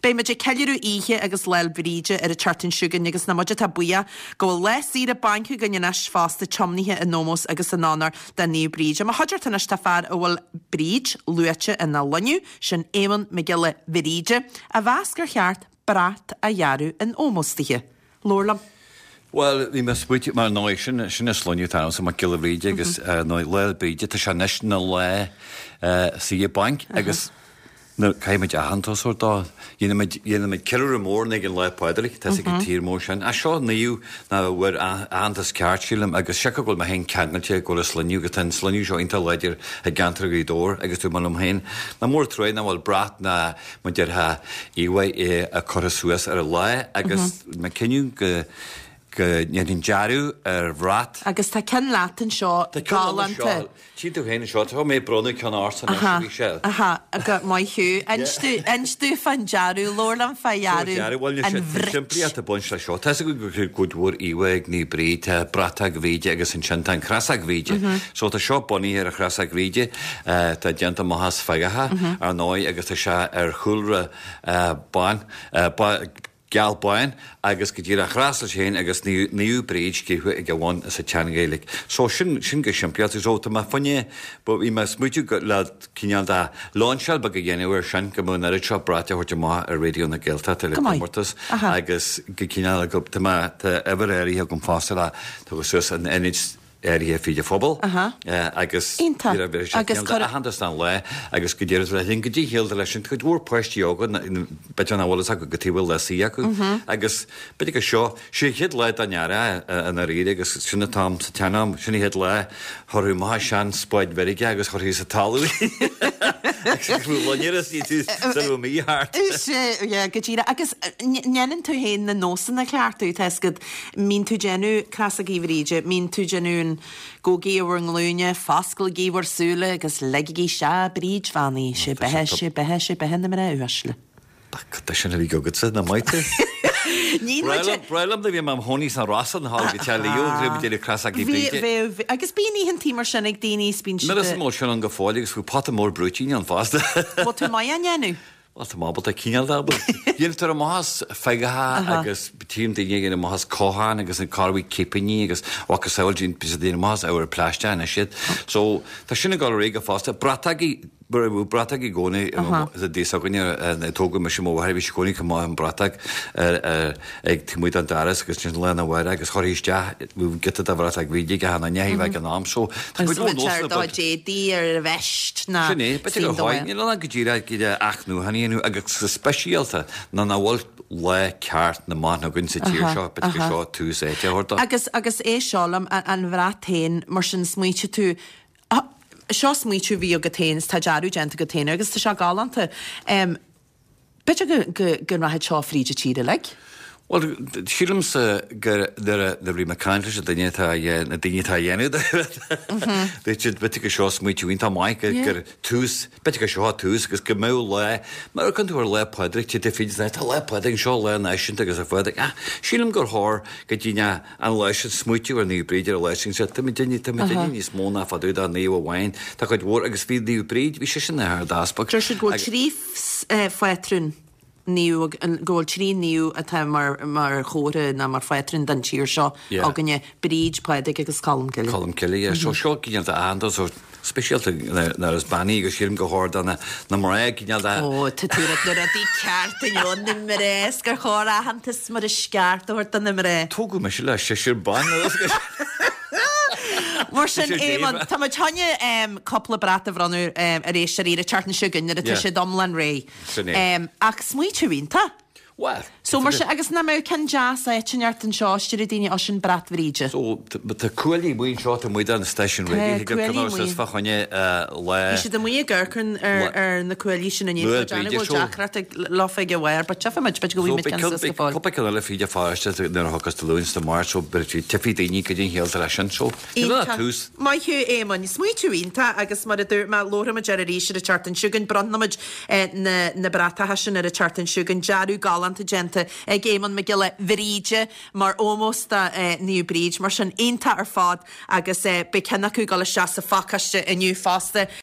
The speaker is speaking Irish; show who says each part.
Speaker 1: Beidh muid ag ceiliúradh Oíche agus Lá 'le Bríde ar an tseachtain seo chugainn agus nach muid atá buíoch go bhfuil lá saoire bainc againn anois fosta tiomnaithe in ómós agus in onóir do Naomh Bríd. I mo chuideachta anois tá fear a bhfuil Bríd luaite ina shloinne, sin Éamonn Mac Giolla Bhríde, a mheas gur cheart brat a dhearadh in ómós dithe. Labhair liom.
Speaker 2: Bhuel, bhí mé ag smaoitiú, mar ndóigh, sin, sin an sloinne atá ormsa, Mac Giolla Bhríde, agus ar ndóigh, Lá 'le Bríde, tá sé anois ina lá saoire bainc agus nuair, caithfidh muid aitheantas a thabhairt dó. Dhéanann muid, dhéanann muid ceiliúradh mór ag an Lá Pádraig, tá 'fhios ag an tír mór sin. Ach seo naomh nach bhfuair aitheantas ceart, sílim, agus siocair go bhfuil mé féin ceangailte go bhfuil an sloinne, agus tá an sloinne seo iontach láidir i gceantar Ghaoth Dobhair agus dúirt mé liom féin, nach mór trua nach bhfuil brat ná mar déarfá íomhá curtha suas ar an lá agus mé cinneadh go go ndéanfainn dearadh ar bhrat.
Speaker 1: Agus tá ceann leat anseo
Speaker 2: Tá ceann liom anseo.
Speaker 1: Galánta.
Speaker 2: Tchíonn tú féin anseo, tá mé ag bronnadh ceann ortsa anois a bhí sé.
Speaker 1: Aha, aha, maith thú. Inis domh, inis domh fán dearadh, labhair liom fá
Speaker 2: dhearadh
Speaker 1: an
Speaker 2: Bhuel, tá
Speaker 1: bhrait.
Speaker 2: simplíocht ag baint leis seo. Tá 'fhios againn go bhfuil cuid mhór íomhá ag Naomh Bríd, tá bratach Bhríde agus ansin tá an chrosóg Bhríde. So tá seo bunaithe ar an chrosóg Bhríde. Tá déanta amach as feagacha, ar ndóigh, agus tá sé ar chúlra bán, geal bán, agus go díreach chros leis féin agus Naomh Bríd scríofa ag a bhun sa tSean-Ghaeilge. So, sin, sin go simplí. So, tá mé fá choinne, bhí mé ag smaoitiú le cineál de lainseáil beag a dhéanamh air sin, go mbeadh an oiread seo brait a thabhairt amach ar Raidió na Gaeltachta le comórtas agus go cineál, tá mé, tá uimhir áirithe agam fosta le, tugadh suas in ionaid áirithe fríd an phobal agus
Speaker 1: Iontach.
Speaker 2: bhí sé
Speaker 1: Agus
Speaker 2: cineál
Speaker 1: cuir.
Speaker 2: d'aitheantas don lá agus go díreach le linn go dtí shaolta leis sin cuid mhór páistí óga b'fhéidir nach bhfuil fhios acu cad chuige a bhfuil lá saoire acu agus b'fhéidir go seo sé an chéad lá den earrach i ndáiríre agus sin an t-am sa tsean-am sin an chéad lá chuirfí amach sean spáid mheirge agus chuirfí sa talamh í agus go raibh loinnir is ní tú sula raibh mí thart.
Speaker 1: Sea, yeah, go díreach. Agus ndéanann tú féin na nósanna a chleachtadh, tá 'fhios agat, Mbíonn tú déanamh Crosógaí Bhríde, mbíonn tú déanamh an Gabhaigí ar bhur nglúine, fosclaigí bhur súile agus leigigí isteach Bríd bheannaithe, sé beatha, sé beatha, sé beatha na mná uaisle.
Speaker 2: Cad é sin a bhí agatsa, nach maith tú?
Speaker 1: Ní
Speaker 2: Breá liom, breá liom do bhí mé im chónaí sna Rosa an hall go teach Leo agus bhí muid ag déanamh Crosógaí
Speaker 1: Bhí,
Speaker 2: Bríde.
Speaker 1: bheadh, agus bíonn oícheantaí mar sin ag daoine is bíonn
Speaker 2: Níl
Speaker 1: siad
Speaker 2: 'fhios
Speaker 1: a.
Speaker 2: an bhfuil sin ann go fóill agus bhí pota mór brúitín ann fosta.
Speaker 1: Bhfuil tú maith á ndéanamh?
Speaker 2: Bhuel, tá mé ábalta cineál de ábalta. Déantar amach as feagacha agus tchím daoine ag déanamh amach as cochán agus an corrmhaith cipíní agus mhacasamhail bíonn siad ag déanamh amach as ábhar plaisteach anois iad. So, tá sin ag dul ar aghaidh go fosta. Bratógaí, bhí bratóg i gcónaí sa dtigh s'againne a tógadh mise mo mháthair, bhí sí i gcónaí chomh maith an bratóg ag taobh amuigh den doras agus ansin lá arna mhárach agus chuirfí isteach giota de bhratóg Bhríde ag achan duine a bheadh ag an am. So, tá
Speaker 1: Agus
Speaker 2: cuid mhór
Speaker 1: bheadh sé ar
Speaker 2: nósanna
Speaker 1: do
Speaker 2: bainte.
Speaker 1: d'éadaí ar an veist ná
Speaker 2: Sin é, b'fhéidir gur
Speaker 1: suim do
Speaker 2: Níl ann ach go díreach go dtí athnuachan a dhéanamh agus go speisialta nuair nach bhfuil lá ceart na mban againn sa tír seo, b'fhéidir gur seo tús áite a thabhairt dó.
Speaker 1: Agus, agus é seo liom, an bhrat féin, mar sin, smaoitigh tú, seo smaoitiú a bhí agat féin is tá dearadh déanta agat féin air agus tá sé galánta. B'fhéidir go, go, go rachaidh seo fríd an tír uilig.
Speaker 2: Bhuel, sílimse gur nuair a, nuair a bhí mé ag caint leis an duine atá a dhé, na daoine atá a dhéanamh de, dúirt siad, b'fhéidir gur seo smaoitiú iontach maith, gur, gur tús, b'fhéidir gur seo tús agus go mbeadh lá, mar a amharcann tú ar Lá Pádraig, tá tú féin, tá Lá Pádraig anseo, lá náisiúnta agus ar fad, ach sílim gur chóir go dtí an lá sin smaoitiú ar Naomh Bríd ar an lá sin, sea, tá muid tá muid duine níos mó ná fadú dá naomh amháin, tá cuid mhór, agus bhí Naomh Bríd, bhí sise ina hArd-Easpag.
Speaker 1: Deir siad go bhfuil 3 phátrún naomh, go bhfuil 3 naomh atá mar mar chomhartha nó mar phátrún don tír seo againne, Bríd, Pádraig agus Colm Cille.
Speaker 2: Colm Cille, yeah. So seo cineál de aitheantas, so speisialta nuair is bean í agus sílim gur chóir do na mná cineál de.
Speaker 1: Ó, tá tú ag rá na rudaí ceart inniu, na mná, is gur chóir aitheantas mar is ceart a thabhairt do na mná.
Speaker 2: Tógadh mise le seisear ban.
Speaker 1: Mar sin, Éamonn, tá muid chun cúpla brat a bhronnadh ar éisteoirí ar an tseachtain seo chugainn nuair atá siad iomlán réidh.
Speaker 2: Sin é.
Speaker 1: Ach smaoitiú iontach.
Speaker 2: Bhuel,
Speaker 1: So mar sin, agus nach mbeadh ceann deas áit inteacht anseo, is deir daoine, ó sin brat Bhríde.
Speaker 2: So, tá cuaillí amuigh anseo, tá amuigh don stáisiún
Speaker 1: Tá
Speaker 2: raidió, thig
Speaker 1: cuaillí
Speaker 2: go raibh
Speaker 1: amuigh.
Speaker 2: suas fá choinne lá.
Speaker 1: Bhí siad amuigh ag amharc ar ar na cuaillí sin inné,
Speaker 2: Lá
Speaker 1: tá déanamh
Speaker 2: Bríde,
Speaker 1: go bhfuil
Speaker 2: so.
Speaker 1: deacracht ag leofa ag a bharr, but tchífidh muid, b'fhéidir go
Speaker 2: So,
Speaker 1: bhfaighidh muid
Speaker 2: beidh
Speaker 1: ceann
Speaker 2: ceann,
Speaker 1: suas go
Speaker 2: beidh
Speaker 1: fóill.
Speaker 2: cúpla ceann eile fríd an pharóiste nuair a thiocfas Dé Luain 's Dé Máirt, so beidh, tchífidh daoine goidé an chiall atá leis sin, so, níl ach
Speaker 1: Iontach.
Speaker 2: tús.
Speaker 1: Maith thú, Éamoinn. Smaoitiú iontach agus mar a dúirt mé, labharfaidh muid air arís ar an tseachtain seo chugainn. Bronnfaidh muid na na bratacha sin ar an tseachtain seo chugainn. Dearadh galánta déanta ag Éamonn Mac Giolla Bhríde mar ómós do Naomh Bríd. Mar sin, iontach ar fad agus beidh ceann acu ag dul isteach sa phacáiste inniu fosta.